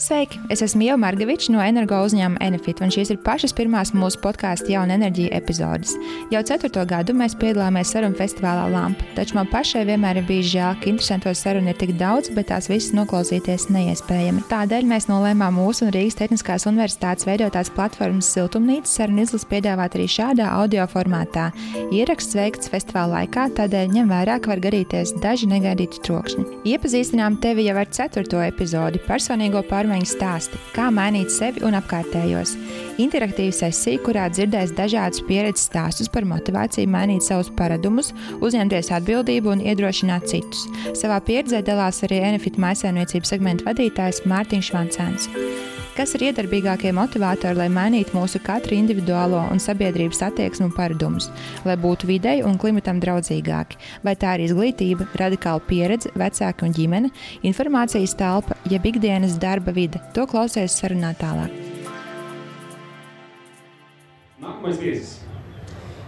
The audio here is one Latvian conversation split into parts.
Sveiki! Es esmu Ieva Margeviča no energo uzņēmuma Enefit, un šīs ir pašas pirmās mūsu podkāsta Jauna enerģija epizodes. Jau 4. gadu mēs piedalāmies sarunu festivālā Lampa, taču man pašai vienmēr ir bijis žēl, ka interesanto sarunu ir tik daudz, bet tās visas noklausīties neiespējami. Tādēļ mēs nolēmām mūsu un Rīgas Tehniskās universitātes veidotās platformas Siltumnīca sarunu izlases piedāvāt arī šādā audio formātā. Ieraksts veikts festivāla laikā, tādēļ ņem vērā, ka var gadīties daži negaidīti trokšņi. Iepazīstinām tevi jau ar 4. epizodi - personīgo pārmaiņu stāsti, kā mainīt sevi un apkārtējos. Interaktīva sesija, kurā dzirdēs dažādus pieredzes stāstus par motivāciju mainīt savus paradumus, uzņemties atbildību un iedrošināt citus. Savā pieredzē dalās arī Enefit mājsaimniecības segmenta vadītājs Mārtiņš Vancēns. Kas ir iedarbīgākie motivātori, lai mainītu mūsu katru individuālo un sabiedrības attieksmi un paradumus, lai būtu videi un klimatam draudzīgāki? Vai tā ir izglītība, radikāla pieredze, vecāki un ģimene, informācijas telpa, jeb ikdienas darba vide? To klausies sarunā tālāk. Nākamais viesis.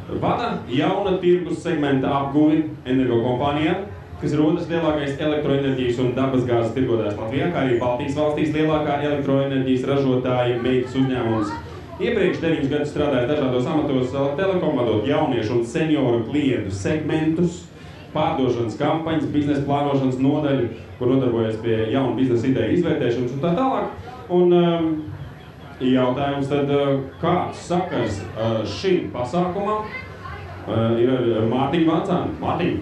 Vada jauna tirgus segmenta apguvi energokompānijā, kas ir otrs lielākais elektroenerģijas un dabasgāzes tirgotājs Latvijā, kā arī Baltijas valstīs lielākā elektroenerģijas ražotāja meitas uzņēmums. Iepriekš 9 gadus strādāja dažādos amatos Telekom, vadot jauniešu un senioru klientu segmentus, pārdošanas kampaņas, biznesa plānošanas nodaļu, kur nodarbojas pie jaunu biznesa ideju izvērtēšanas un tā tālāk. Un jautājums tad, kāds sakars šim pasākumam ir ar Mārtiņu Vancēnu? Mārtiņu!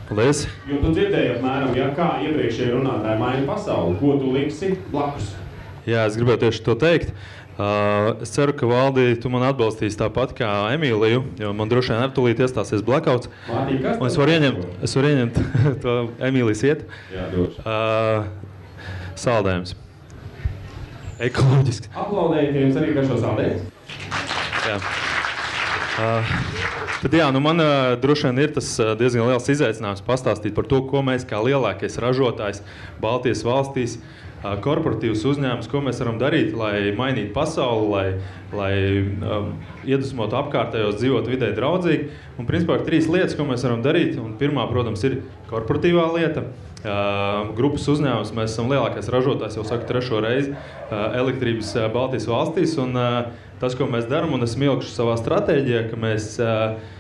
Paldies! Jo tu dzirdēji apmēram, kā iepriekšēji runātāji maina pasauli, ko tu liksi blakus? Jā, es gribēju tieši to teikt. Es ceru, ka Valdi, tu man atbalstīsi tāpat kā Emīliju, jo man droši vien tūlīt iestāsies blackouts. Mārtiņ, kas un es varu ieņemt to Emīlijas iet. Jā, droši. Saldējums. Ekoloģisks. Aplaudējiet jums arī par šo saldējumu. Jā. Tad jā, man droši vien ir tas diezgan liels izaicinājums pastāstīt par to, ko mēs kā lielākais ražotājs Baltijas valstīs, korporatīvs uzņēmums, ko mēs varam darīt, lai mainītu pasauli, lai iedvesmotu apkārtējos dzīvot vidē draudzīgi. Un principā ir 3 lietas, ko mēs varam darīt. Un pirmā, protams, ir korporatīvā lieta. Grupas uzņēmums, mēs esam lielākais ražotājs, jau saku 3. reizi, elektrības Baltijas valstīs. Un tas, ko mēs darām, un esam ielikuši savā stratēģijā, ka mēs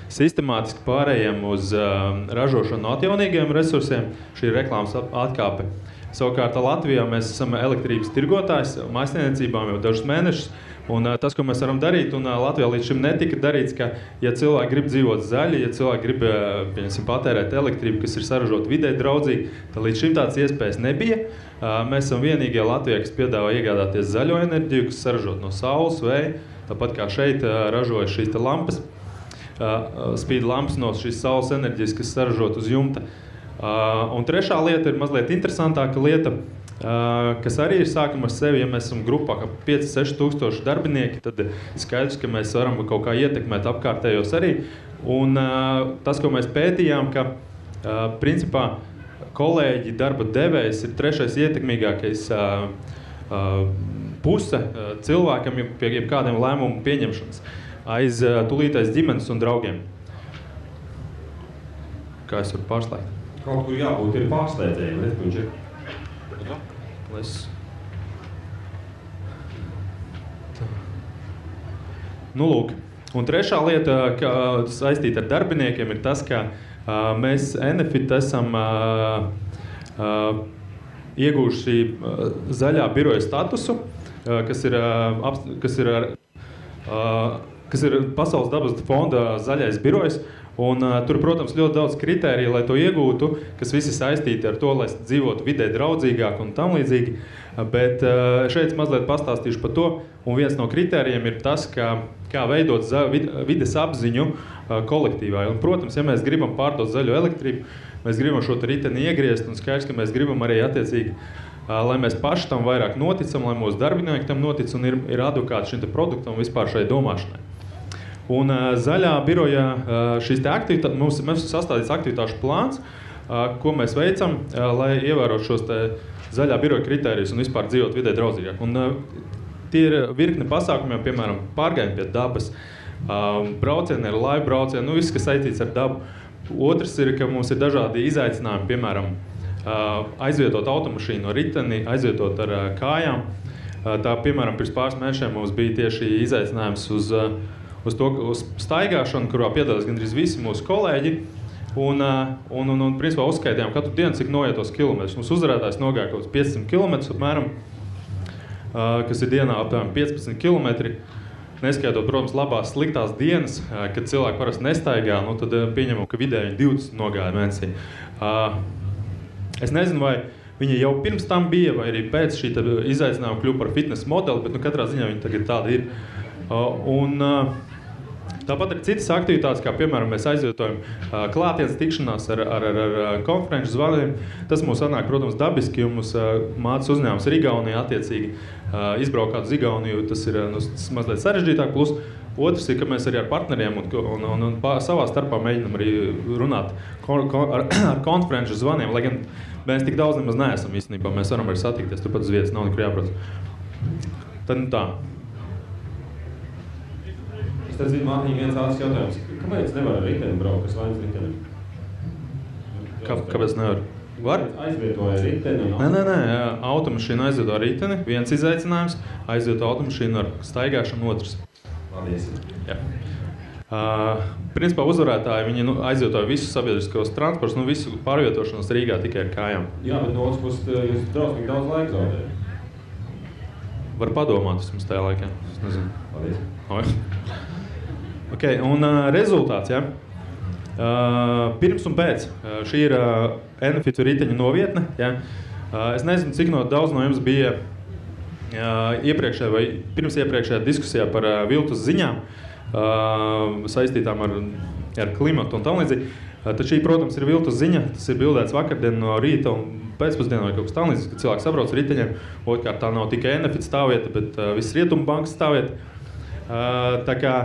sistemātiski pārējām uz ražošanu no atjaunīgiem resursiem. Šī ir reklāmas atkāpe. Savukārt Latvijā mēs esam elektrības tirgotājs mājsaimniecībām jau dažus mēnešus. Un tas, ko mēs varam darīt, un Latvijā līdz šim netika darīts, ka, ja cilvēki grib dzīvot zaļi, ja cilvēki grib patērēt elektrību, kas ir saražota vidē draudzīgi, tad līdz šim tāds iespējas nebija. Mēs esam vienīgie Latvijā, kas piedāvā iegādāties zaļo enerģiju, kas saražot no saules, vēja, tāpat kā šeit ražoja šīs lampas, spīd lampas no šīs saules enerģijas, kas saražot uz jumta. Un trešā lieta ir mazliet interesantāka lieta, kas arī ir sākuma ar sevi. Ja mēs esam grupā 5-6 tūkstoši darbinieki, tad skaidrs, ka mēs varam kaut kā ietekmēt apkārtējos arī. Un tas, ko mēs pētījām, ka principā kolēģi darba devējs ir 3. ietekmīgākais puse cilvēkam pie kādiem lēmumu pieņemšanas aiz tūlītais ģimenes un draugiem. Kā es varu pārslēgt? Kaut kur jābūt ir pārsteidējiem, redz, viņš ir. Nu, lūk. Un trešā lieta, kas saistīta ar darbiniekiem, ir tas, ka mēs Enefit esam iegūši zaļā biroja statusu, kas ir Pasaules dabas fonda zaļais birojs. Un tur, protams, ļoti daudz kritēriju, lai to iegūtu, kas visi saistīti ar to, lai dzīvotu vidē draudzīgāk un tam līdzīgi. Bet šeit mazliet pastāstīšu par to. Un viens no kritērijiem ir tas, kā veidot vides apziņu kolektīvā. Un, protams, ja mēs gribam pārdot zaļo elektrību, mēs gribam šo riteni iegriezt, un skaidrs, ka mēs gribam arī attiecīgi, lai mēs paši tam vairāk noticam, lai mūsu darbinieki tam notic un ir advokāti šim produktam un vispār šai domāšanai. Un zaļā birojā šīs aktivitātes, mums sastādīts aktivitāšu plāns, ko mēs veicam, lai ievērotu šos zaļā biroja kritērijus un vispār dzīvot vidē draudzīgāk. Un tie ir virkne pasākumiem, piemēram, pārgājumi pie dabas, braucieni ar laivu braucienu, viss, kas saistīts ar dabu. Otrs ir, ka mums ir dažādi izaicinājumi, piemēram, aizvietot automašīnu ar riteni, aizvietot ar kājām. Tā, piemēram, pirms pāris mēnešiem mums bija tieši izaicinājums uz staigāšanu, kurā piedalās gandrīz visi mūsu kolēģi. Un principā uzskaitījām katru dienu, cik noietos kilometrus. Mums uzvarētājs nogāja kaut 500 kilometrus apmēram, kas ir dienā apmēram 15 kilometri. Neskaitot, protams, labās, sliktās dienas, kad cilvēki parasti nestaigā, tad pieņemam, ka vidēji 20 nogāja mēnesī. Es nezinu, vai viņi jau pirms tam bija, vai arī pēc šī izaicinājuma kļuva par fitness modeli, bet katrā ziņā viņi tagad tādi ir. Tāpat ir citas aktivitātes, kā piemēram mēs aizvietojam klātienes tikšanās ar konferenču zvaniem. Tas mums sanāk, protams, dabiski, jo mums mācas uzņēmums ir Igaunijā attiecīgi izbraukāt uz Igauniju, tas ir mazliet sarežģītāk. Plus otrs ir, ka mēs arī ar partneriem un savā starpā mēģinam arī runāt ar konferenču zvaniem, lai gan mēs tik daudz nemaz neesam īstenībā. Mēs varam arī satikties, turpat uz vietas nav nekur jābrauc. Tad tā. Es zinu, Mārtiņa, viens ātrs jautājums. Kāpēc nevar ar riteni braukt, kas vainas riteni? Kāpēc nevar? Var? Aizvietoja riteni. Nē, automašīnu aizvieto ar riteni, viens izaicinājums, aizvieto automašīnu ar staigāšanu otrs. Paldies. Jā. Principā uzvarētāji, viņi aizvietoja visus sabiedriskos transportus, visu pārvietošanos Rīgā tikai ar kājām. Jā, bet no otras puses jūs drausmīgi daudz laika zaudējat. Var padomāt vismaz tajā laikā. Es nezinu. Paldies. Okay, un rezultāts, ja? Pirms un pēc. Šī ir Enefit riteņa novietne. Ja? Es nezinu, cik daudz no jums bija iepriekšējā vai pirms iepriekšējā diskusijā par viltus ziņām saistītām ar klimatu un tam līdzīgi. Tad šī, protams, ir viltus ziņa. Tas ir bildēts vakardien no rīta un pēcpusdienā vai kaut kas tam līdzīgs, kad cilvēks sabrauc ar riteņiem. Otrkārt, tā nav tikai Enefit stāvvieta, bet viss Rietumu bankas stāvvieta. Tā kā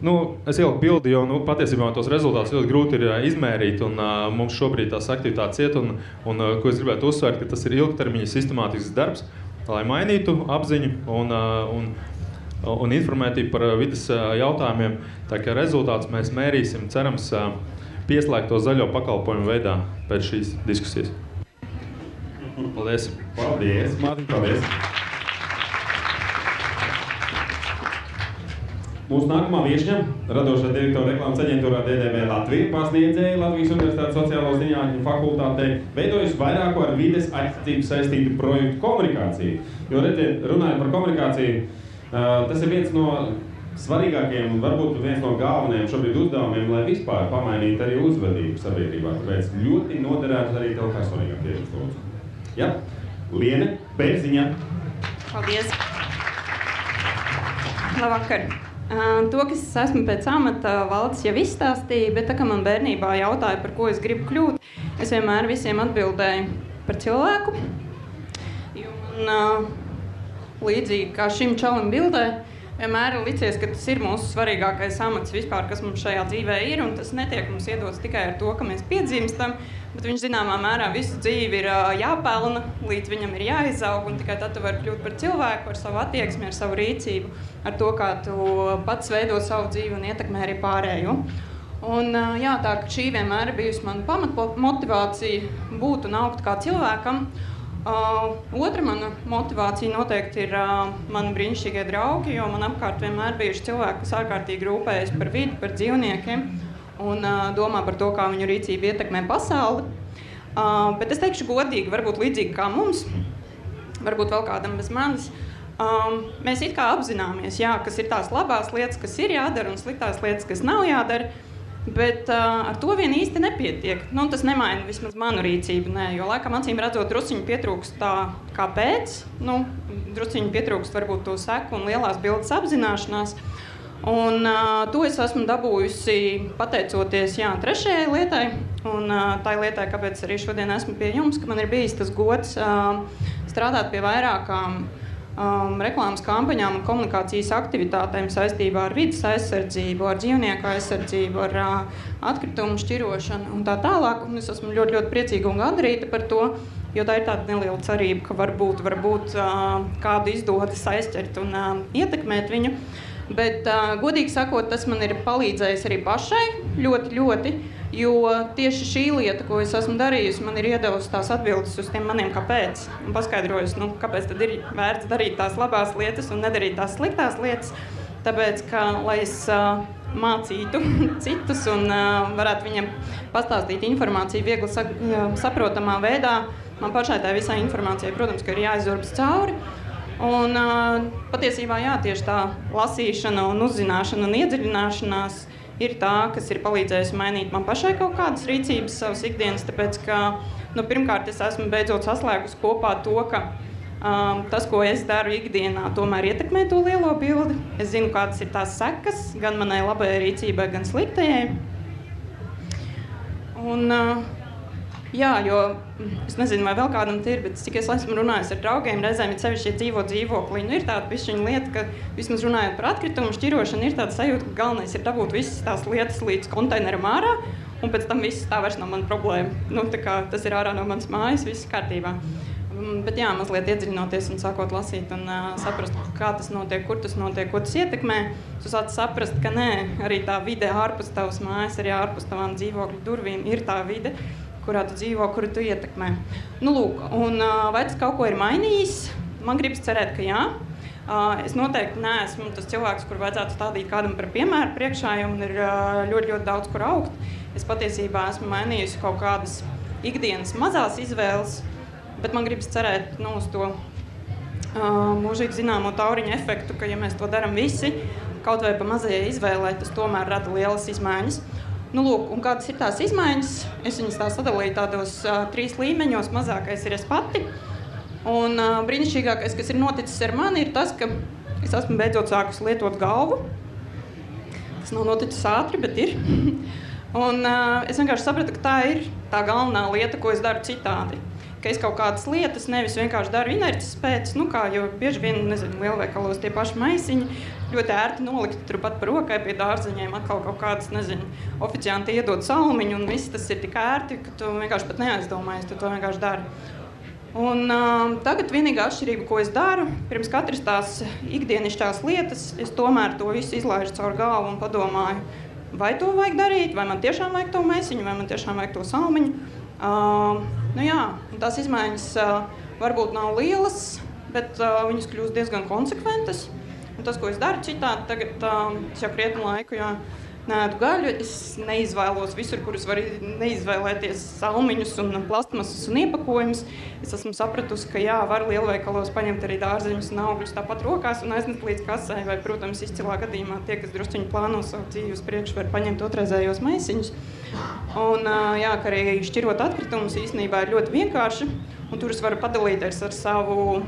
es ieliku bildi, jo patiesībā tos rezultātus ļoti grūti ir izmērīt, un mums šobrīd tās aktivitātes iet, un ko es gribētu uzsvērt, ka tas ir ilgtermiņa sistemātisks darbs, lai mainītu apziņu un informētību par vides jautājumiem. Tā kā rezultātus mēs mērīsim, cerams, pieslēgto zaļo pakalpojumu veidā pēc šīs diskusijas. Paldies! Paldies, Mārtiņ, paldies! Mūsu nākamā viešņa, radošā direktora reklāmas aģentūrā DDB Latvija, pasniedzēja Latvijas Universitātes sociālo zinātņu fakultātē, veidojusi vairāku ar vides aizsardzību saistītu projektu komunikāciju. Jo, redziet, runājot par komunikāciju, tas ir viens no svarīgākajiem un varbūt viens no galvenajiem šobrīd uzdevumiem, lai vispār pamainītu arī uzvedību sabiedrībā. Tāpēc ļoti noderētu arī tev kā svarīgākie uzlūdzu. Ja? Liene Bērziņa. Paldies. Labvakar. To, kas es esmu pēc amata, Valdis jau izstāstīja, bet tā kā man bērnībā jautāja, par ko es gribu kļūt, es vienmēr visiem atbildēju par cilvēku. Jo man līdzīgi kā šim čalim bildē, vienmēr ir licies, ka tas ir mūsu svarīgākais amats vispār, kas mums šajā dzīvē ir, un tas netiek mums iedots tikai ar to, ka mēs piedzimstam, bet viņš zināmā mērā visu dzīvi ir jāpelna, līdz viņam ir jāizaug, un tikai tad tu vari kļūt par cilvēku, ar savu attieksmi, ar savu rīcību, ar to, kā tu pats veido savu dzīvi un ietekmē arī pārējo. Un jā, tā ka šī vienmēr ir bijusi mana pamatmotivācija būt un augt kā cilvēkam. Otra mana motivācija noteikti ir mani brīnišķīgie draugi, jo man apkārt vienmēr bijuši cilvēki, kas ārkārtīgi rūpējas par vidi, par dzīvniekiem un domā par to, kā viņu rīcība ietekmē pasauli. Bet es teikšu godīgi, varbūt līdzīgi kā mums, varbūt vēl kādam bez manis, mēs it kā apzināmies, jā, kas ir tās labās lietas, kas ir jādara un sliktās lietas, kas nav jādara, bet ar to vien īsti nepietiek. Tas nemaina vismaz manu rīcību, nē, jo laikam acīm redzot drusciņu pietrūkst tā kāpēc, drusciņu pietrūkst varbūt to seku un lielās bildes apzināšanās. Un to es esmu dabūjusi pateicoties trešajai lietai, un tai lietai, kāpēc arī šodien esmu pie jums, ka man ir bijis tas gods strādāt pie vairākām reklāmas kampaņām un komunikācijas aktivitātēm saistībā ar vides aizsardzību, ar dzīvnieku aizsardzību, ar atkritumu šķirošanu un tā tālāk. Un es esmu ļoti, ļoti priecīga un gandarīta par to, jo tā ir tāda neliela cerība, ka varbūt kādu izdodas aizķert un ietekmēt viņu. Bet, godīgi sakot, tas man ir palīdzējis arī pašai ļoti, ļoti, Jo tieši šī lieta, ko es esmu darījusi, man ir iedevusi tās atbildes uz tiem maniem kāpēc. Un paskaidrojusi, kāpēc tad ir vērts darīt tās labās lietas un nedarīt tās sliktās lietas. Tāpēc, ka, lai es mācītu citus un varētu viņiem pastāstīt informāciju viegli saprotamā veidā, man pašai tā visai informācijai, protams, ka ir jāizurbas cauri. Un patiesībā jā, tieši tā lasīšana un uzzināšana un iedziļināšanās ir tā, kas ir palīdzējusi mainīt man pašai kaut kādas rīcības savas ikdienas, tāpēc, ka, pirmkārt, es esmu beidzot saslēgusi kopā to, ka tas, ko es daru ikdienā, tomēr ietekmē to lielo bildi. Es zinu, kādas ir tās sekas, gan manai labajai rīcībai, gan sliktajai. Un, jā, jo es nezinu, vai vēl kādam ir, bet cik es esmu runājis ar draugiem, reizēm ir sevišķi dzīvo dzīvoklī. Ir tāda pišķiņa lieta, ka vismaz runājot par atkritumu šķirošanu, ir tāda sajūta, ka galvenais ir dabūt visas tās lietas līdz konteineram ārā, un pēc tam viss tā vairs nav mana problēma. Tā kā tas ir ārā no manas mājas, viss kārtībā. Bet jā, mazliet iedziļinoties un sākot lasīt un saprast, kā tas notiek, kur tas notiek, ko tas ietekmē. Tu sāc saprast, ka nē, arī tā vide ārpus tavas mājas, arī ārpus tavām dzīvokļu durvīm ir tā vide, kurā tu dzīvo, kuru tu ietekmē. Lūk, un vai tas kaut ko ir mainījis? Man gribas cerēt, ka jā. Es noteikti neesmu tas cilvēks, kur vajadzētu stādīt kādam par piemēru priekšā, jo man ir ļoti, ļoti daudz, kur augt. Es patiesībā esmu mainījusi kaut kādas ikdienas mazās izvēles, bet man gribas cerēt uz to mūžīgi zināmo tauriņu efektu, ka, ja mēs to darām visi, kaut vai pa mazajai izvēlē, tas tomēr rada lielas izmaiņas. Lūk, un kādas ir tās izmaiņas? Es viņas tā sadalīju tādos 3 līmeņos. Mazākais ir es pati. Un brīnišķīgākais, kas ir noticis ar mani, ir tas, ka es esmu beidzot sākusi lietot galvu. Tas nav noticis ātri, bet ir. Un es vienkārši sapratu, ka tā ir tā galvenā lieta, ko es daru citādi. Ka es kaut kādas lietas nevis vienkārši daru inerces pēc, jo bieži vien, lielveikalos tie paši maisiņi ļoti ērti nolikti turpat par rokai pie dārzeņiem, atkal kaut kādas, oficianti iedod salmiņu, un viss tas ir tik ērti, ka tu vienkārši pat neaizdomājies, tu to vienkārši dari. Un tagad vienīgā atšķirība, ko es daru, pirms katras tās ikdienišķās lietas, es tomēr to visu izlaižu caur galvu un padomāju, vai to vajag darīt, vai man tiešām vajag to maisiņu, vai man tiešām vajag to salmiņu. Tās izmaiņas varbūt nav lielas, bet viņas kļūst diezgan konsekventas. Un tas, ko es daru citādi, tagad es jau krietnu laiku neēdu gaļu, es neizvēlos visur, kur es varu neizvēlēties salmiņus un plastmasas un iepakojumus. Es esmu sapratusi, ka jā, var lielveikalos paņemt arī dārzeņus un augļus tāpat rokās un aiznest līdz kasai, vai, protams, izcilā gadījumā tie, kas drusciņi plāno savu dzīvi uz priekšu, var paņemt otrreizējos maisiņus. Un jā, ka arī šķirot atkritumus īstenībā ir ļoti vienkārši, un tur es varu padalīties ar savu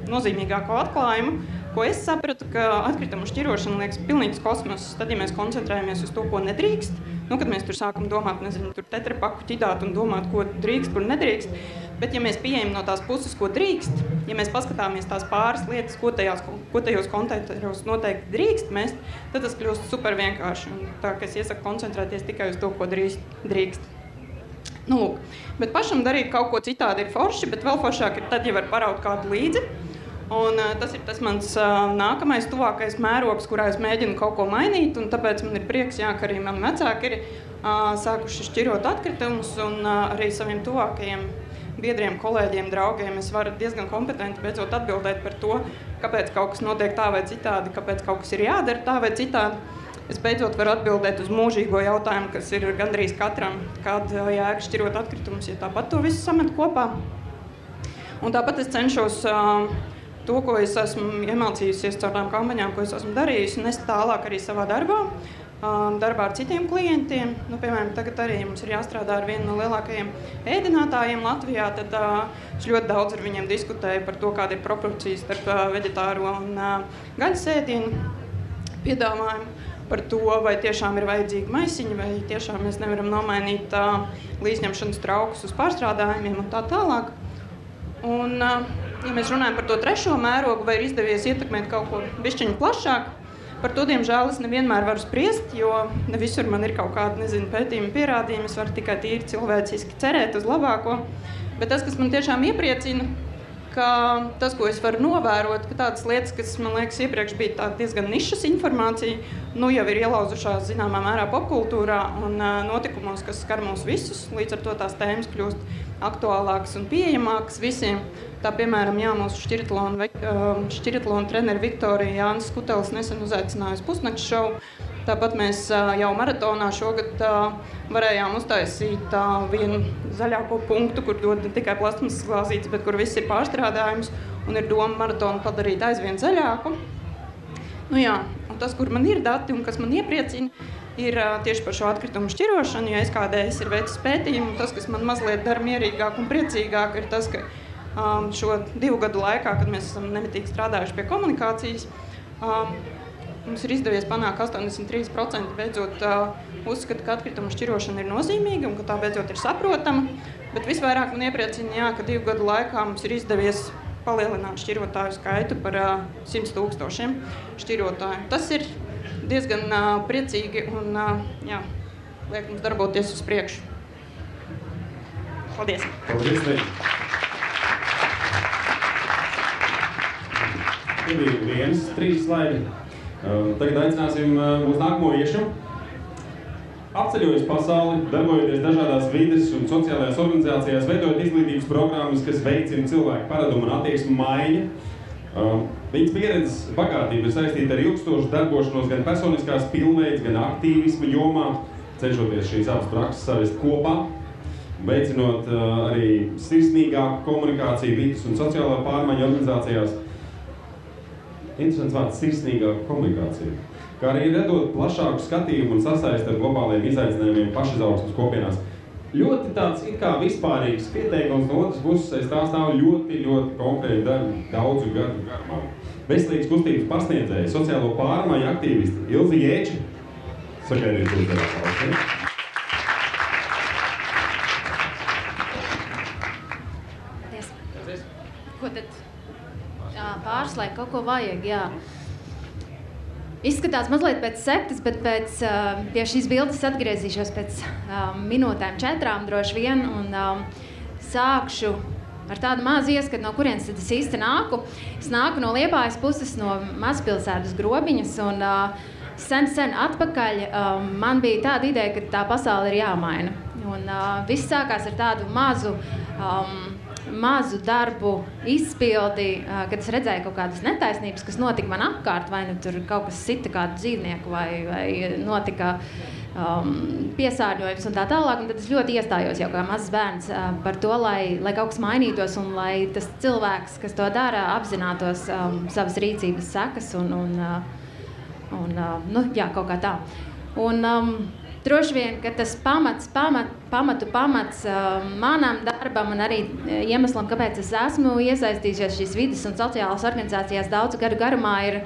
nozīmīgāko atklājumu, ko es sapratu, ka atkritumu šķirošana liekas pilnīgs kosmos, tad, ja mēs koncentrējamies uz to, ko nedrīkst, kad mēs tur sākam domāt, tur tetrapaku ķidāt un domāt, ko drīkst, kur nedrīkst, bet ja mēs pieejam no tās puses, ko drīkst, ja mēs paskatāmies tās pāris lietas, ko tajos konteineros noteikti drīkst mest, tad tas kļūst super vienkārši. Un tā, ka es iesaku koncentrēties tikai uz to, ko drīkst. Lūk, bet pašam darīt kaut ko citādi ir forši, bet vēl foršāk ir tad, ja var paraut kādu līdzi. Un tas ir tas mans nākamais tuvākais mērogs, kurā es mēģinu kaut ko mainīt, un tāpēc man ir prieks, ka arī mani vecāki ir sākuši šķirot atkritumus, un arī saviem tuvākajiem biedriem, kolēģiem, draugiem es varu diezgan kompetenti beidzot atbildēt par to, kāpēc kaut kas notiek tā vai citādi, kāpēc kaut kas ir jādara tā vai citādi. Es beidzot varu atbildēt uz mūžīgo jautājumu, kas ir gandrīz katram, kāda jēga šķirot atkritumus, ja tāpat to visu samet kopā. Un tāpat es cenšos to, ko es esmu iemācījusies caur tām kampaņām, ko es esmu darījusi, nest tālāk arī savā darbā ar citiem klientiem. Piemēram, tagad arī mums ir jāstrādā ar vienu no lielākajiem ēdinātājiem Latvijā, tad es ļoti daudz ar viņiem diskutēju par to, kāda ir proporcija starp veģetāro un gaļas ēdienu piedāvājumu, par to, vai tiešām ir vajadzīgi maisiņi, vai tiešām mēs nevaram nomainīt līdzņemšanas traukus uz pārstrādājumiem un tā tālāk. Un, ja mēs runājam par to trešo mērogu, vai ir izdevies ietekmēt kaut ko bišķiņu plašāk, par to, diemžēl, es nevienmēr varu spriest, jo ne visur man ir kaut kāda, pētījumi pierādījumi, es varu tikai tīri cilvēciski cerēt uz labāko. Bet tas, kas man tiešām iepriecina, ka tas, ko es varu novērot, ka tādas lietas, kas, man liekas, iepriekš bija diezgan nišas informācija, nu jau ir ielauzušās zināmā mērā popkultūrā un notikumos, kas skar mūs visus. Līdz ar to tās tēmas kļūst aktuālākas un pieejamākas visiem. Tā, piemēram, mūsu šķiritlona treneri Viktorija Jānis Skutelis nesen uzaicinājusi pusnakts šovu. Tāpat mēs jau maratonā šogad varējām uztaisīt vienu zaļāko punktu, kur dod ne tikai plastmasas glāzītes, bet kur viss ir pārstrādājums un ir doma maratonu padarīt aizvien zaļāku. Nu jā, un tas, kur man ir dati un kas man iepriecina, ir tieši par šo atkritumu šķirošanu, jo SKDS ir veicis pētījumu. Tas, kas man mazliet dara mierīgāk un priecīgāk, ir tas, ka šo 2 gadu laikā, kad mēs esam nemitīgi strādājuši pie komunikācijas, mums ir izdevies panākt 83% beidzot uzskata, ka atkritumu šķirošana ir nozīmīga un ka tā beidzot ir saprotama. Bet visvairāk man iepriecina, ka 2 gadu laikā mums ir izdevies palielināt šķirotāju skaitu par 100 000 šķirotāju. Tas ir diezgan priecīgi un liek mums darboties uz priekšu. Paldies! Paldies! Tie bija 3 slaidi. Tagad aicināsim mūsu nākamo viešu. Apceļojas pasauli, darbojoties dažādās vides un sociālajās organizācijās, veidojot izglītības programmas, kas veicina cilvēku paradumu un attieksmu maiņu. Viņas pieredzes bagātība ir saistīta ar ilgstošu darbošanos gan personiskās pilnveids, gan aktīvisma jomā, cenšoties šīs abas prakses savest kopā, veicinot arī sirsnīgāku komunikāciju vides un sociālā pārmaiņu organizācijās. Interesants vārds - sirsnīgāka komunikācija, kā arī redot plašāku skatījumu un sasaisti ar globāliem izaicinājumiem pašizaugsmes kopienās. Ļoti tāds it kā vispārīgs pieteikums, no otras puses aiz tā stāv ļoti konkrēti daudzu gadu garumā. Veselīgas kustības pasniedzēji, sociālo pārmaiņu aktīvisti Ilze Jēča. Sagaidīt uzdevā paldies. Paldies. Ko tad? Pārslēgt kaut ko vajag, jā. Izskatās mazliet pēc sektas, bet pie šīs bildes atgriezīšos pēc minūtēm 4 droši vien un sākšu ar tādu mazu ieskatu, no kurienes tad es īsti nāku. Es nāku no Liepājas puses, no mazpilsētas Grobiņas un sen atpakaļ man bija tāda ideja, ka tā pasaule ir jāmaina. Un viss sākās ar tādu mazu darbu izpildi, kad es redzēju kaut kādas netaisnības, kas notika man apkārt, vai nu tur kaut kas sita kādu dzīvnieku, vai notika piesārņojums un tā tālāk. Un tad es ļoti iestājos jau kā mazs bērns par to, lai kaut kas mainītos un lai tas cilvēks, kas to dara, apzinātos savas rīcības sekas un kaut kā tā. Un droši vien, ka tas pamats manam darbam un arī iemeslam, kāpēc es esmu iesaistījusies šīs vides un sociālās organizācijās daudzu gadu garumā, ir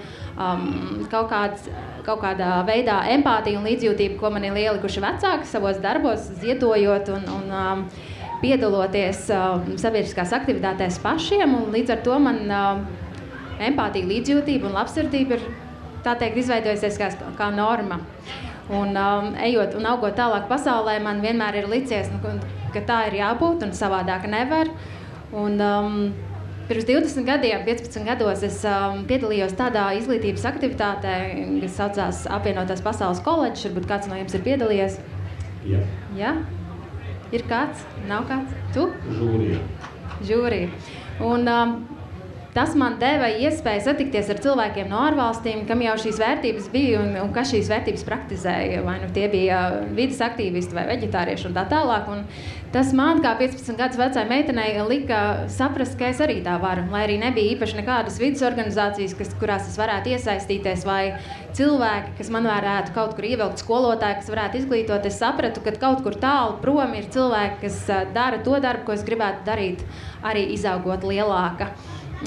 kaut kādā veidā empātija un līdzjūtība, ko man ir ielikuši vecāki savos darbos, ziedojot un piedaloties sabiedriskās aktivitātēs pašiem. Un līdz ar to man empātija, līdzjūtība un labsirdība ir, tā teikt, izveidojusies kā norma. Un ejot un augot tālāk pasaulē, man vienmēr ir licies, ka tā ir jābūt un savādāk nevar. Un pirms 20 gadiem, 15 gados es piedalījos tādā izglītības aktivitātē, kas saucās Apvienotās pasaules koledžs. Varbūt kāds no jums ir piedalījies? Jā. Ja? Ir kāds? Nav kāds? Tu? Žūrija. Un tas man deva iespēju satikties ar cilvēkiem no ārvalstīm, kam jau šīs vērtības bija un kas šīs vērtības praktizēja. Vai nu tie bija vides aktīvisti vai veģetārieši un tā tālāk. Un tas man, kā 15 gadus vecai meitenei, lika saprast, ka es arī tā varu. Lai arī nebija īpaši nekādas vides organizācijas, kurās es varētu iesaistīties, vai cilvēki, kas man varētu kaut kur ievilkt, skolotāji, kas varētu izglītot, es sapratu, ka kaut kur tālu prom ir cilvēki, kas dara to darbu, ko es gribētu darīt, arī izaugot lielāka.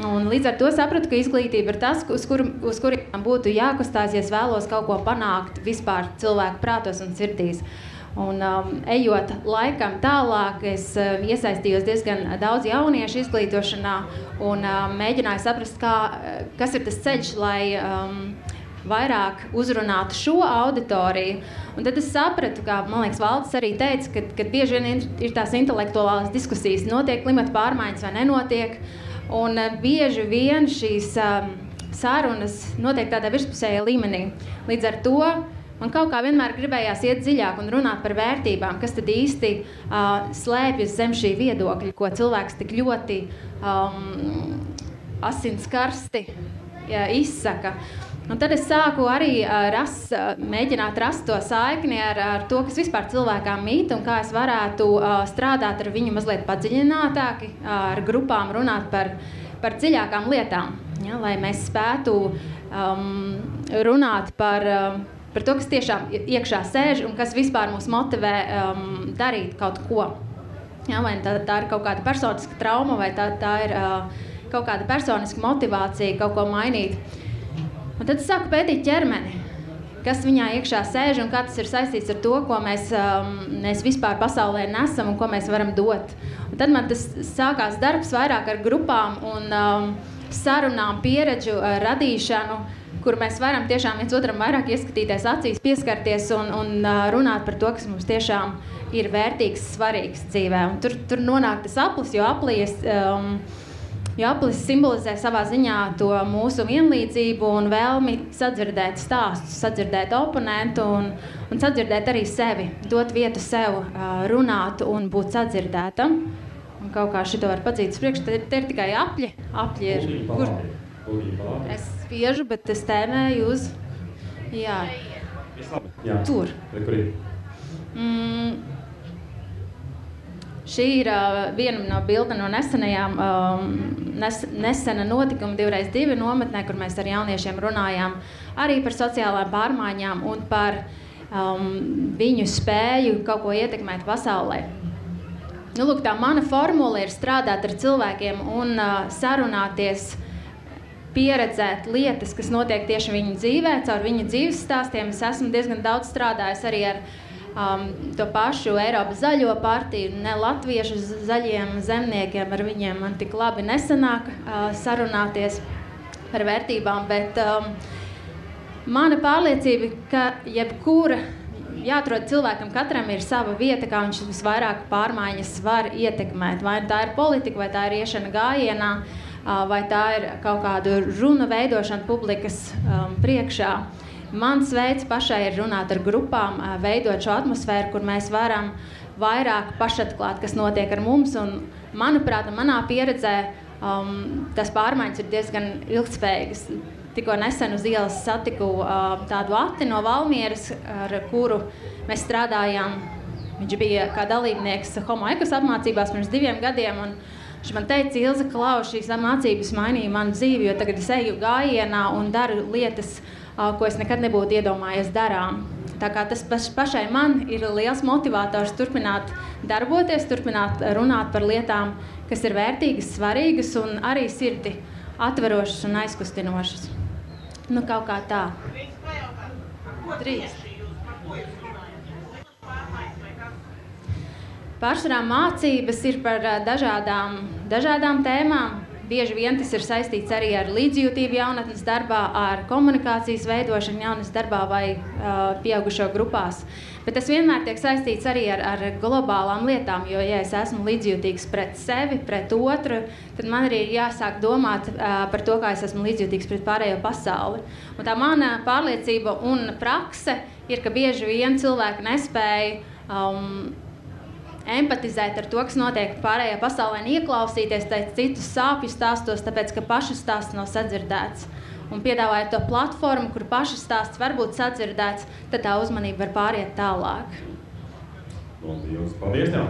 Un līdz ar to sapratu, ka izglītība ir tas, uz kuriem būtu jākustās, ja es vēlos kaut ko panākt vispār cilvēku prātos un sirdīs. Un ejot laikam tālāk, es iesaistījos diezgan daudz jauniešu izglītošanā un mēģināju saprast, kas ir tas ceļš, lai vairāk uzrunātu šo auditoriju. Un tad es sapratu, ka, man liekas, Valdis arī teica, ka bieži vien ir tās intelektuālās diskusijas, notiek klimata pārmaiņas vai nenotiek. Un bieži vien šīs sarunas notiek tādā virspusējā līmenī. Līdz ar to man kaut kā vienmēr gribējās iet dziļāk un runāt par vērtībām, kas tad īsti slēpjas zem šī viedokļa, ko cilvēks tik ļoti asinskarsti izsaka. Un tad es sāku arī mēģināt rast to saikni ar to, kas vispār cilvēkām mīt un kā es varētu strādāt ar viņu mazliet padziļinātāki, ar grupām runāt par dziļākām lietām, ja, lai mēs spētu runāt par to, kas tiešām iekšā sēž un kas vispār mūs motivē darīt kaut ko. Ja, vai tā ir kaut kāda personiska trauma vai tā ir kaut kāda personiska motivācija kaut ko mainīt. Un tad es sāku pētīt ķermeni, kas viņā iekšā sēž un kā tas ir saistīts ar to, ko mēs vispār pasaulē nesam un ko mēs varam dot. Un tad man tas sākās darbs vairāk ar grupām un sarunām, pieredžu radīšanu, kur mēs varam tiešām viens otram vairāk ieskatīties acīs, pieskarties un runāt par to, kas mums tiešām ir vērtīgs, svarīgs dzīvē. Un tur nonāk tas aplis, jo aplis simbolizē savā ziņā to mūsu vienlīdzību un vēlmi sadzirdēt stāstus, sadzirdēt oponentu un sadzirdēt arī sevi, dot vietu sev, runāt un būt sadzirdētam. Un kaut kā šito var padzīt uz priekšu, te ir tikai apļi. Apļi ir, kur es spiežu, bet es tēmēju uz, jā, tur. Šī ir viena no bilde no nesena notikuma 2x2 nometnē, kur mēs ar jauniešiem runājām arī par sociālām pārmaiņām un par viņu spēju kaut ko ietekmēt pasaulē. Nu, lūk, tā mana formula ir strādāt ar cilvēkiem un sarunāties, pieredzēt lietas, kas notiek tieši viņu dzīvē, caur viņu dzīves stāstiem. Es esmu diezgan daudz strādājis arī ar to pašu Eiropas zaļo partiju, ne latviešu zaļiem zemniekiem, ar viņiem man tik labi nesanāk sarunāties par vērtībām, bet mana pārliecība, ka jebkura jāatrod cilvēkam, katram ir sava vieta, kā viņš visvairāk pārmaiņas var ietekmēt. Vai tā ir politika, vai tā ir iešana gājienā, vai tā ir kaut kādu runu veidošana publikas priekšā. Mans veids pašai ir runāt ar grupām, veidot šo atmosfēru, kur mēs varam vairāk pašatklāt, kas notiek ar mums. Un, manuprāt, manā pieredzē tas pārmaiņas ir diezgan ilgtspējīgas. Tikko nesen uz ielas satiku tādu Ati no Valmieras, ar kuru mēs strādājām. Viņš bija kā dalībnieks Homo Ekus apmācībās pirms 2 gadiem. Un viņš man teica, Ilze, Klau, šīs mācības mainīja manu dzīvi, jo tagad es eju gājienā un daru lietas, ko es nekad nebūtu iedomājies darām. Tā kā tas pašai man ir liels motivators turpināt darboties, turpināt runāt par lietām, kas ir vērtīgas, svarīgas un arī sirdi atverošas un aizkustinošas. Nu, kaut kā tā. Drīz. Pārsvarā mācības ir par dažādām tēmām. Bieži vien tas ir saistīts arī ar līdzjūtību jaunatnes darbā, ar komunikācijas veidošanu jaunatnes darbā vai pieaugušo grupās. Bet tas vienmēr tiek saistīts arī ar globālām lietām, jo, ja es esmu līdzjūtīgs pret sevi, pret otru, tad man arī ir jāsāk domāt par to, kā es esmu līdzjūtīgs pret pārējo pasauli. Un tā mana pārliecība un prakse ir, ka bieži vien cilvēki nespēja empatizēt ar to, kas notiek pārējā pasaulē, un ieklausīties citus sāpju stāstos, tāpēc, ka paša stāsts nav sadzirdēts. Un piedāvājot to platformu, kur paša stāsts var būt sadzirdēts, tad tā uzmanība var pāriet tālāk. Paldies tev!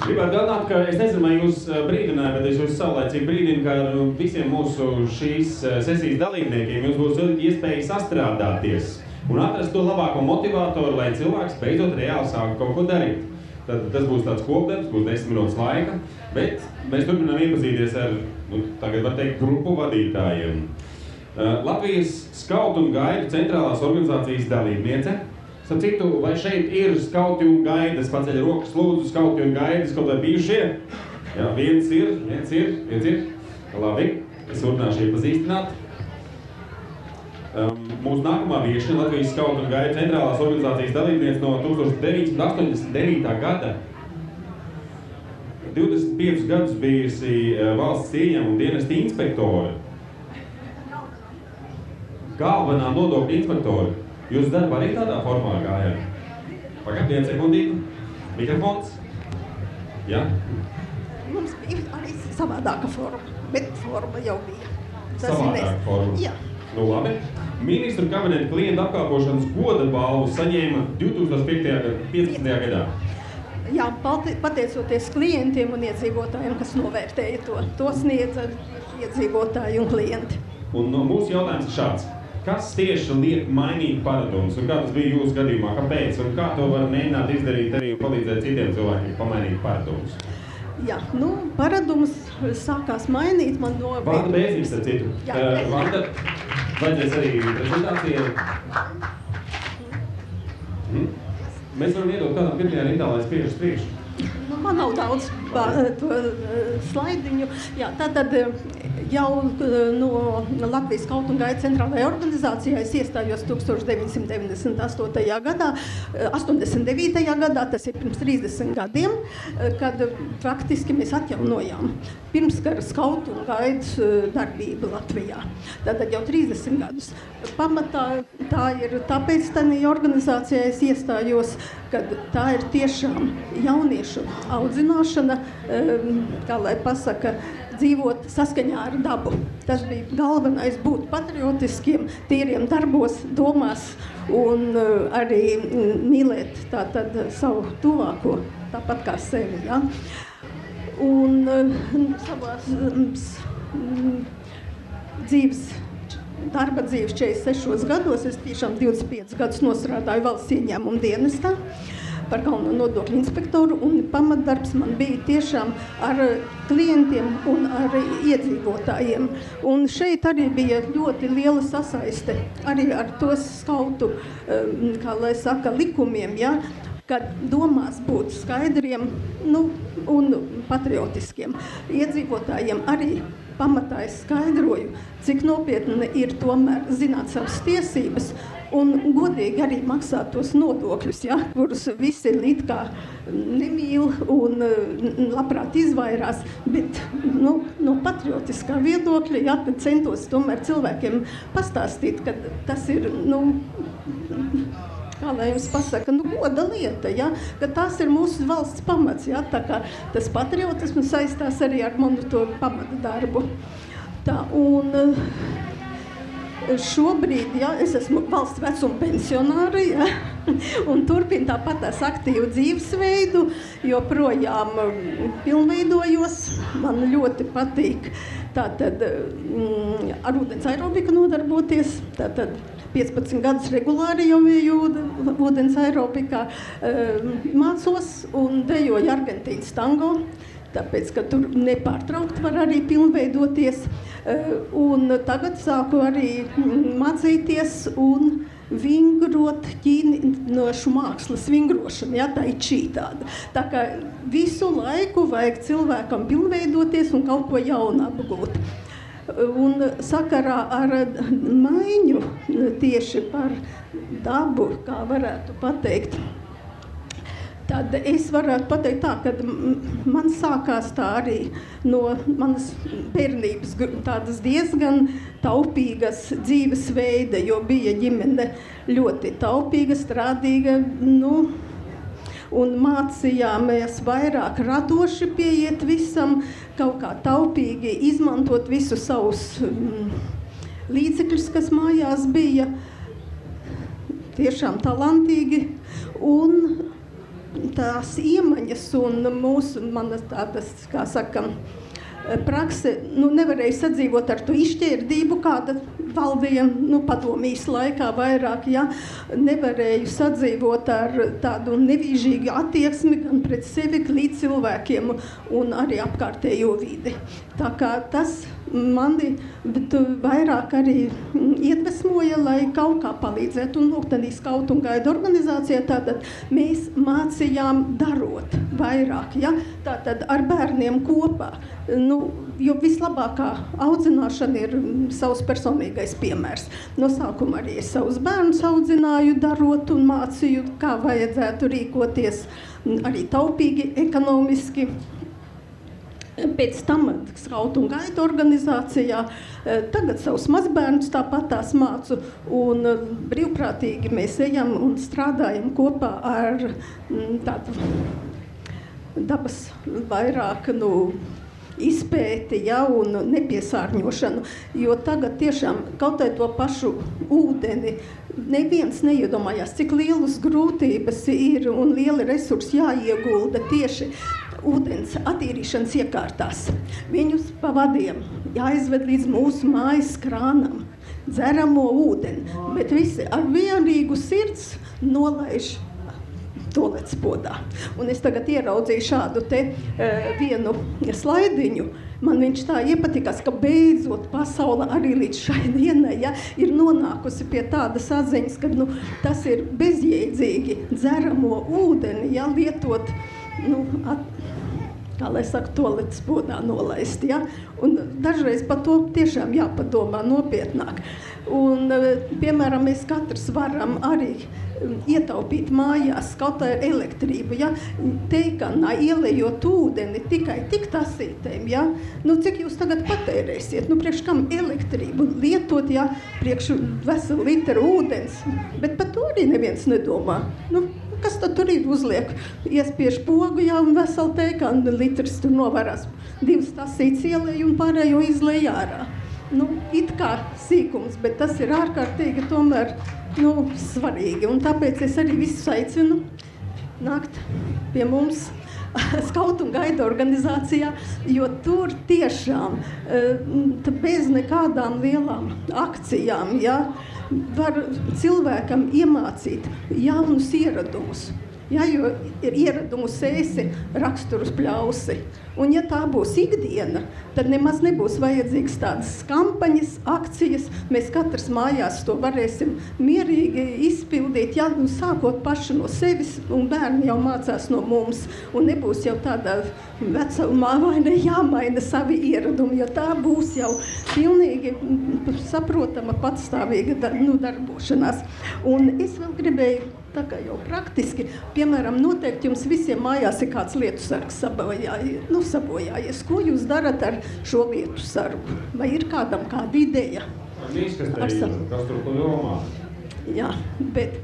Gribētu atgādināt, ka es nezinu, vai jūs brīdināju, bet es jūs saulēcīgi brīdinu, ka visiem mūsu šīs sesijas dalībniekiem jūs būs iespēja sastrādāties un atrast to labāko motivātoru, lai cilvēks beidzot reāli sāk kaut ko darīt. Tad tas būs tāds kopdarbs, būs 10 minūtes laika, bet mēs turpinām iepazīties ar, tagad var teikt, grupu vadītājiem. Latvijas skautu un gaidu centrālās organizācijas dalībniece. Starp citu, vai šeit ir skauti un gaidas? Paceļ rokas, lūdzu, skauti un gaidas, kaut vai bijušie? Jā, viens ir. Labi, es turpināšu iepazīstināt. Mūsu nākamā viešņa Latvijas skautu un gaidu centrālās organizācijas dalībniece no 1989. gada. 25 gadus bijusi valsts ieņēmuma un dienesta inspektori. Galvenā nodokļu inspektori. Jūs darba arī tādā formā gājāt? Pagad, 1 sekundīti. Mikrofons. Jā? Mums bija arī savādāka forma, bet forma jau bija. Savādāka forma? Jā. Nu labi. Ministru kabineta klientu apkalpošanas goda balvu saņēma 2015. gadā. Jā, pateicoties klientiem un iedzīvotājiem, kas novērtēja to sniedza iedzīvotāji un klienti. Un mūsu jautājums ir šāds. Kas tieši liek mainīt paradumus? Un kā tas bija jūsu gadījumā? Kāpēc? Un kā to var mēģināt izdarīt arī un palīdzēt citiem cilvēkiem pamainīt paradumus? Jā, paradums sākās mainīt man no... Vanda Bēznieks, ar citu. Vanda, vajadzēs arī prezentācijai. Mēs varam iedot kādam pirmajā rindā, lai spiežas priekšu. Man nav daudz to slaidiņu. Jā, tātad jau no Latvijas skautu un gaidu centrālajā organizācijā es iestājos 1998. gadā, 89. gadā, tas ir pirms 30 gadiem, kad praktiski mēs atjaunojām pirmskara skautu un gaidu darbību Latvijā. Tātad jau 30 gadus. Pamatā tā ir tāpēc tādā organizācijā es iestājos, kad tā ir tiešām jauniešu audzināšana, kā lai pasaka, dzīvot saskaņā ar dabu. Tas bija galvenais būt patriotiskiem, tīriem darbos, domās un arī mīlēt tātad savu tuvāko, tāpat kā sevi. Ja? Un savās darba dzīves 46 gados, es tiešām 25 gadus nostrādāju valsts ieņēmuma dienestā par galveno nodokļu inspektoru, un pamatdarbs man bija tiešām ar klientiem un ar iedzīvotājiem. Un šeit arī bija ļoti liela sasaiste arī ar tos skautu, kā lai saka, likumiem, ja, kad domās būt skaidriem, un patriotiskiem. Iedzīvotājiem arī pamatā es skaidroju, cik nopietni ir tomēr zināt savas tiesības un godīgi arī maksāt tos nodokļus, ja, kurus visi it kā nemīl un labprāt izvairās, bet no patriotiskā viedokļa, ja, centos tomēr cilvēkiem pastāstīt, ka tas ir, kā lai jums pasaka, goda lieta, ja, ka tas ir mūsu valsts pamats, ja, tā kā tas patriotisms saistās arī ar manu to pamata darbu. Tā, un šobrīd, ja, es esmu valsts vecuma pensionāra, ja, un turpinu tāpat tās aktīvu dzīvesveidu, joprojām pilnveidojos, man ļoti patīk tātad ar ūdens aerobiku nodarboties, tātad 15 gadus regulāri jau biju ūdens aerobikā, mācos un dejoju Argentīnas tango, tāpēc, ka tur nepārtraukt var arī pilnveidoties. Un tagad sāku arī mācīties un vingrot ķīniešu mākslas vingrošanu, ja, tā ir čī tāda. Tā kā visu laiku vajag cilvēkam pilnveidoties un kaut ko jaunu apgūt. Un sakarā ar maiņu tieši par dabu, kā varētu pateikt, tad es varētu pateikt tā, ka man sākās tā arī no manas bērnības tādas diezgan taupīgas dzīvesveida, jo bija ģimene ļoti taupīga, strādīga, un mācījāmies vairāk radoši pieiet visam, kaut kā taupīgi izmantot visus savus līdzekļus, kas mājās bija, tiešām talantīgi, un tās iemaņas un manas tādas, kā saka, prakse, nevarēja sadzīvot ar to izšķērdību, kāda valdīja, padomijas laikā vairāk, ja, nevarēju sadzīvot ar tādu nevīžīgu attieksmi gan pret sevi, līdz cilvēkiem un arī apkārtējo vidi. Tā kā tas mani vairāk arī iedvesmoja, lai kaut kā palīdzētu. Un lūgtanī skautu un gaidu organizācijā tātad mēs mācījām darot vairāk, ja? Tātad ar bērniem kopā. Jo vislabākā audzināšana ir savas personīgās galīgais piemērs. No sākuma arī es savus bērnus audzināju, darot un mācīju, kā vajadzētu rīkoties, arī taupīgi, ekonomiski. Pēc tam Skautu un Gaidu organizācijā, tagad savus mazbērnus tāpat tās mācu, un brīvprātīgi mēs ejam un strādājam kopā ar tādu dabas vairāk, izpēti, un nepiesārņošanu, jo tagad tiešām kaut vai to pašu ūdeni neviens neiedomājās, cik lielas grūtības ir un lieli resursi jāiegulda tieši ūdens attīrīšanas iekārtās. Viņus pa vadiem jāizved līdz mūsu mājas krānam, dzeramo ūdeni, bet visi ar vienīgu sirds nolaiž toalets podā. Un es tagad ieraudzīju šādu te vienu slaidiņu. Man viņš tā iepatikās, ka beidzot pasaule arī līdz šai dienai ir nonākusi pie tādas atziņas, ka tas ir bezjēdzīgi dzeramo ūdeni, lietot, kā lai saka, toaletes podā nolaist, Un dažreiz par to tiešām jāpadomā nopietnāk. Un, piemēram, mēs katrs varam arī ietaupīt mājās kaut kā elektrību, teikanā ielejot ūdeni tikai tik tasītēm, cik jūs tagad patērēsiet, priekš kam elektrību lietot, priekš veselu litru ūdens, bet par to arī neviens nedomā. Kas tad tur ir uzliek? Iespiež pogu, un veselu teikanu litrs tur novarās. 2 tasītes ielej un pārējo izlej ārā. It kā sīkums, bet tas ir ārkārtīgi tomēr, svarīgi. Un tāpēc es arī visus aicinu nākt pie mums Skautu un Gaidu organizācijā, jo tur tiešām bez nekādām lielām akcijām, var cilvēkam iemācīt jaunus ieradumus. Jo ir ieradumu sēsi, raksturus pļausi. Un ja tā būs ikdiena, tad nemaz nebūs vajadzīgas tādas kampaņas, akcijas. Mēs katrs mājās to varēsim mierīgi izpildīt, sākot paši no sevis, un bērni jau mācās no mums. Un nebūs jau tādā vecumā vai ne jāmaina savi ieradumi, jo tā būs jau pilnīgi saprotama patstāvīga darbošanās. Un es vēl gribēju, tā kā jau piemēram, noteikti jums visiem mājās ir kāds lietu sargs sabojājies. Ko jūs darat ar šo lietu sargu? Vai ir kādam kāda ideja? Kas tur ko jomā? Jā, bet,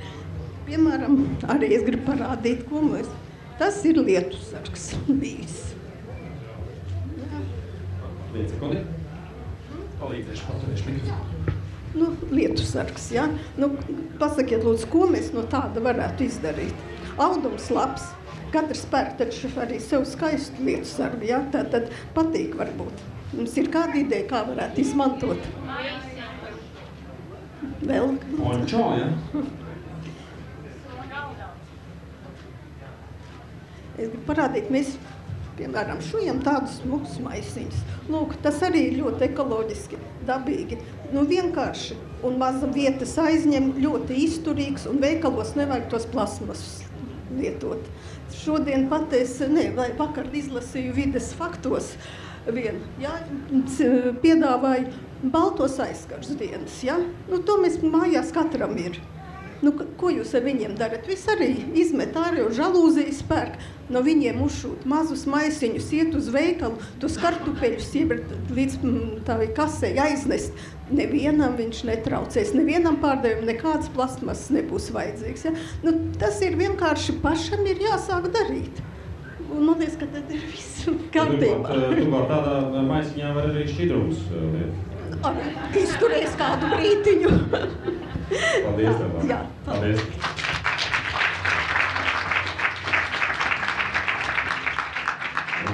piemēram, arī es gribu parādīt, ko mēs. Tas ir lietu sargs bijis. Viens sekundi. Palīdzēšu, paturēšu mikrofonu. Lietu sargs, pasakiet, lūdzu, ko mēs no tāda varētu izdarīt. Audums labs, katrs pērk taču arī sev skaistu lietu sargu, tātad patīk varbūt. Mums ir kāda ideja, kā varētu izmantot? Vēl? Ončo, Es gribu parādīt, mēs, piemēram, šujam tādus smukus maisiņus. Lūk, tas arī ir ļoti ekoloģiski, dabīgi. Vienkārši un maza vietas aizņem, ļoti izturīgs, un veikalos nevajag tos plasmasus lietot. Šodien vakar izlasīju vides faktos piedāvāju baltos aizkars dienas, to mēs mājās katram ir. Ko jūs ar viņiem darat? Viss arī izmet ārā, žalūzijas pērk, no viņiem uzšūt mazus maisiņus, iet uz veikalu, tos kartupeļus līdz tā kasē aiznest. Nevienam viņš netraucēs, nevienam pārdevumam nekādas plastmasas nebūs vajadzīgs. Tas ir vienkārši pašam ir jāsāk darīt. Un man liekas, ka tad ir viss kārtībā. Tu var tādā maisiņā var arī šķidrums liet. Izturēs kādu brītiņu. Paldies tev. Jā, paldies.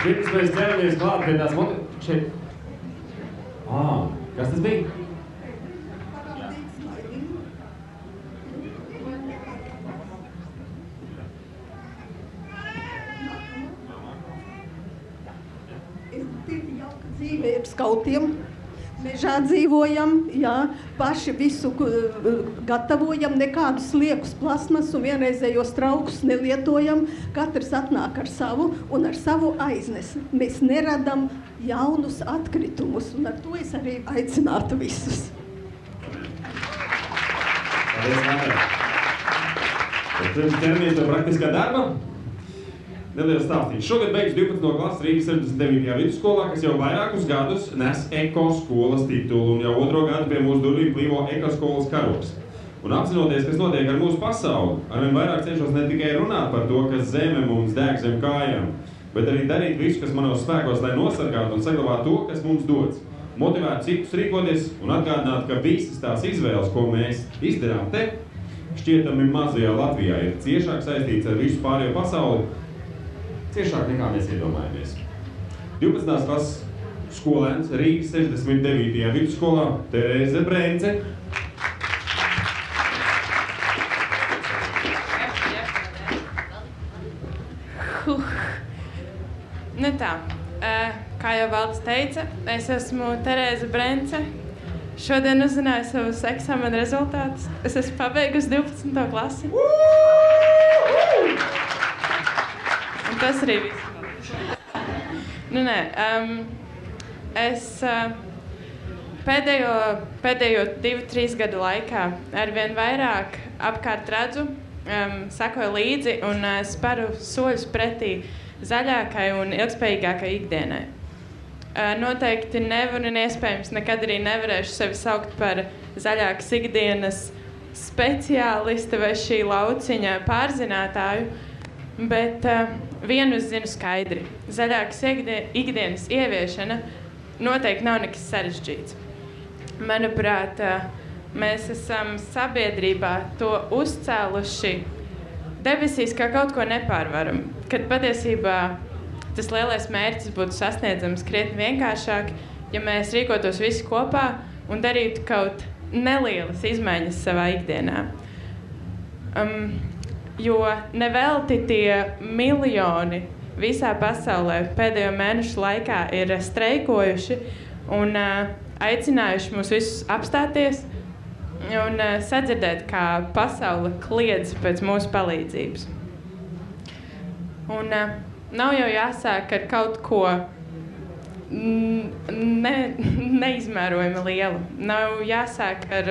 Pirms mēs ķeramies klāt pie tās šeit. Kas tas bija? Dzīve ir skautiem. Mežā dzīvojam, paši visu gatavojam, nekādus liekus plasmas un vienreizējos traukus nelietojam. Katrs atnāk ar savu un ar savu aiznes. Mēs neradam jaunus atkritumus, un ar to es arī aicinātu visus. Paldies, Māra. Tad ķeramies pie praktiskā darba. Neliels stāstīšu. Šogad beigs 12. klases Rīgas 69. vidusskolā, kas jau vairākus gadus nes ekoskolas titulu un jau 2. gadu pie mūsu durvīm plīvo ekoskolas karogs. Un apzinoties, kas notiek ar mūsu pasauli, arvien vairāk cenšos ne tikai runāt par to, kas zeme mums deg zem kājām, bet arī darīt visu, kas manos spēkos, lai nosargātu un saglabātu to, kas mums dots. Motivēt citus rīkoties un atgādināt, ka visas tās izvēles, ko mēs izdarām te, šķietami mazajā Latvijā ir ciešāk saistīts ar visu pārējo pasauli, ciešāk nekā mēs iedomājamies. 12. klases skolēns Rīgas 69. vidusskolā Terēze Brence. Nu tā, kā jau Valdis teica, es esmu Terēze Brence. Šodien uzzināju savus eksāmena rezultātus. Es esmu pabeigusi 12. klasi. Un tas arī viss. Nu nē, es pēdējo 2-3 gadu laikā arvien vairāk apkārt redzu, sekoju līdzi un sparu soļus pretī zaļākai un ilgspējīgākai ikdienai. Noteikti nevaru un iespējams nekad arī nevarēšu sevi saukt par zaļākas ikdienas speciālisti vai šī lauciņa pārzinātāju, bet vienu es zinu skaidri. Zaļākas ikdienas ieviešana noteikti nav nekas sarežģīts. Manuprāt, mēs esam sabiedrībā to uzcēluši debesīs kā kaut ko nepārvaram, kad patiesībā tas lielais mērķis būtu sasniedzams krietni vienkāršāk, ja mēs rīkotos visi kopā un darītu kaut nelielas izmaiņas savā ikdienā. Jo nevelti tie miljoni visā pasaulē pēdējo mēnešu laikā ir streikojuši un aicinājuši mūs visus apstāties un sadzirdēt, kā pasaule kliedz pēc mūsu palīdzības. Un nav jau jāsāk ar kaut ko neizmērojami lielu. Nav jāsāk ar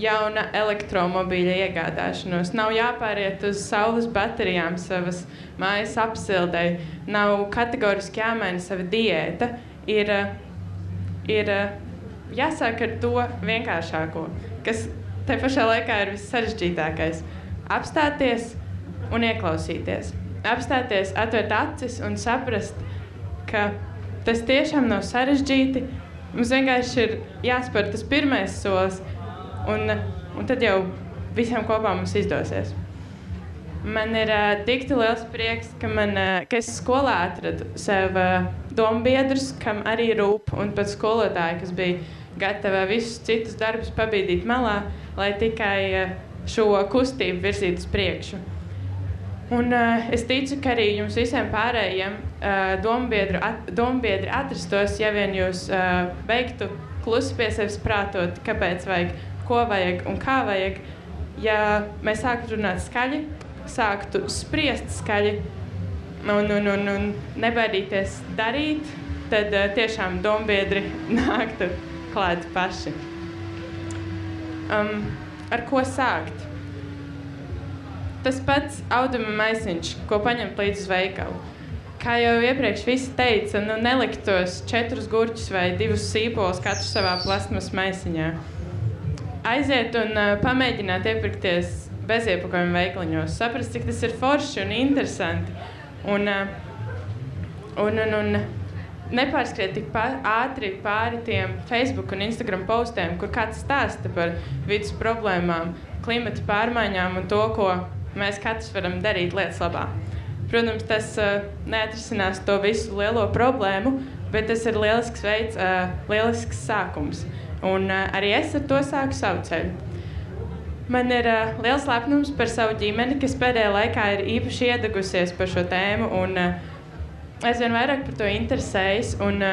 jauna elektromobīļa iegādāšanos. Nav jāpāriet uz saules baterijām savas mājas apsildei. Nav kategoriski jāmaina sava diēta. Ir jāsāk ar to vienkāršāko, kas te pašā laikā ir vissarežģītākais. Apstāties un ieklausīties. Apstāties, atvērt acis un saprast, ka tas tiešām nav sarežģīti. Mums vienkārši ir jāspēr tas pirmais solis, un tad jau visiem kopā mums izdosies. Man ir tik liels prieks, ka es skolā atradu sev dombiedrus, kam arī rūp, un pat skolotāji, kas bija gatava visus citus darbus pabīdīt malā, lai tikai šo kustību virzītu uz priekšu. Un es ticu, ka arī jums visiem pārējiem dombiedri atrastos, ja vien jūs beigtu klusi pie sevis prātot, kāpēc vajag, ko vajag un kā vajag. Ja mēs sāktu runāt skaļi, sāktu spriest skaļi un nebaidīties darīt, tad tiešām dombiedri nāktu klāt paši. Ar ko sākt? Tas pats auduma maisiņš, ko paņemt līdz uz veikalu. Kā jau iepriekš visi teica, nelikt tos 4 gurķus vai 2 sīpolus katru savā plasmas maisiņā. Aiziet un pamēģināt iepirkties beziepakojumu veikaliņos, saprast, cik tas ir forši un interesanti. Un nepārskriet tik ātri pāri tiem Facebook un Instagram postiem, kur kāds stāsta par vidas problēmām, klimata pārmaiņām un to, ko mēs katrs varam darīt lietas labā. Protams, tas neatrisinās to visu lielo problēmu, bet tas ir lielisks veids, lielisks sākums. Un arī es ar to sāku savu ceļu. Man ir liels lepnums par savu ģimeni, kas pēdējā laikā ir īpaši iedegusies par šo tēmu un aizvien vairāk par to interesējas. Un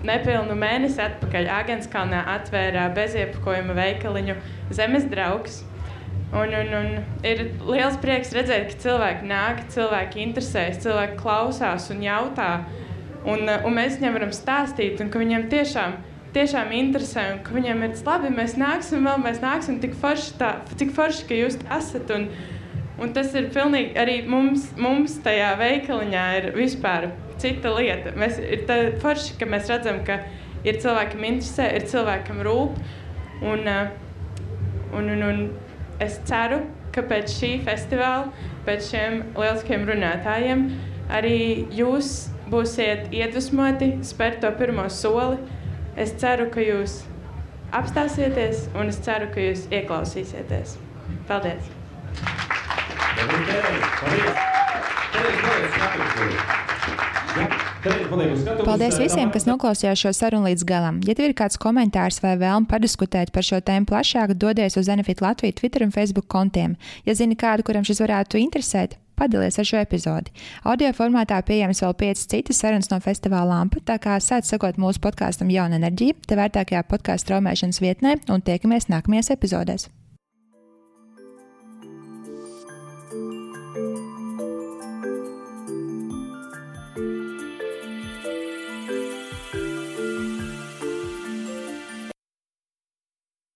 nepilnu mēnesi atpakaļ Āgenskalnā atvēra beziepakojuma veikaliņu Zemes draugs. Un ir liels prieks redzēt, ka cilvēki nāk, cilvēki interesējas, cilvēki klausās un jautā. Un mēs viņiem varam stāstīt, un ka viņiem tiešām tiešām interesē un ka viņiem ir labi, mēs nāksim tik forši, ka jūs esat. Un tas ir pilnīgi arī mums tajā veikaliņā ir vispār cita lieta. Ir tā forši, ka mēs redzam, ka ir cilvēkam interesē, ir cilvēkam rūp. Un es ceru, ka pēc šī festivāla, pēc šiem lieliskiem runātājiem, arī jūs būsiet iedvesmoti spērt to pirmo soli. Es ceru, ka jūs apstāsieties, un es ceru, ka jūs ieklausīsieties. Paldies! Paldies visiem, kas noklausījās šo sarunu līdz galam. Ja tev ir kāds komentārs vai vēlme padiskutēt par šo tēmu plašāk, dodies uz Enefit Latviju Twitter un Facebook kontiem. Ja zini kādu, kuram šis varētu interesēt, padalies ar šo epizodi. Audio formātā pieejams vēl 5 citas sarunas no festivāla Lampa, tā kā sāc sekot mūsu podkāstam Jauna enerģija, te vērtākajā podkāstu straumēšanas vietnē un tiekamies nākamajās epizodēs.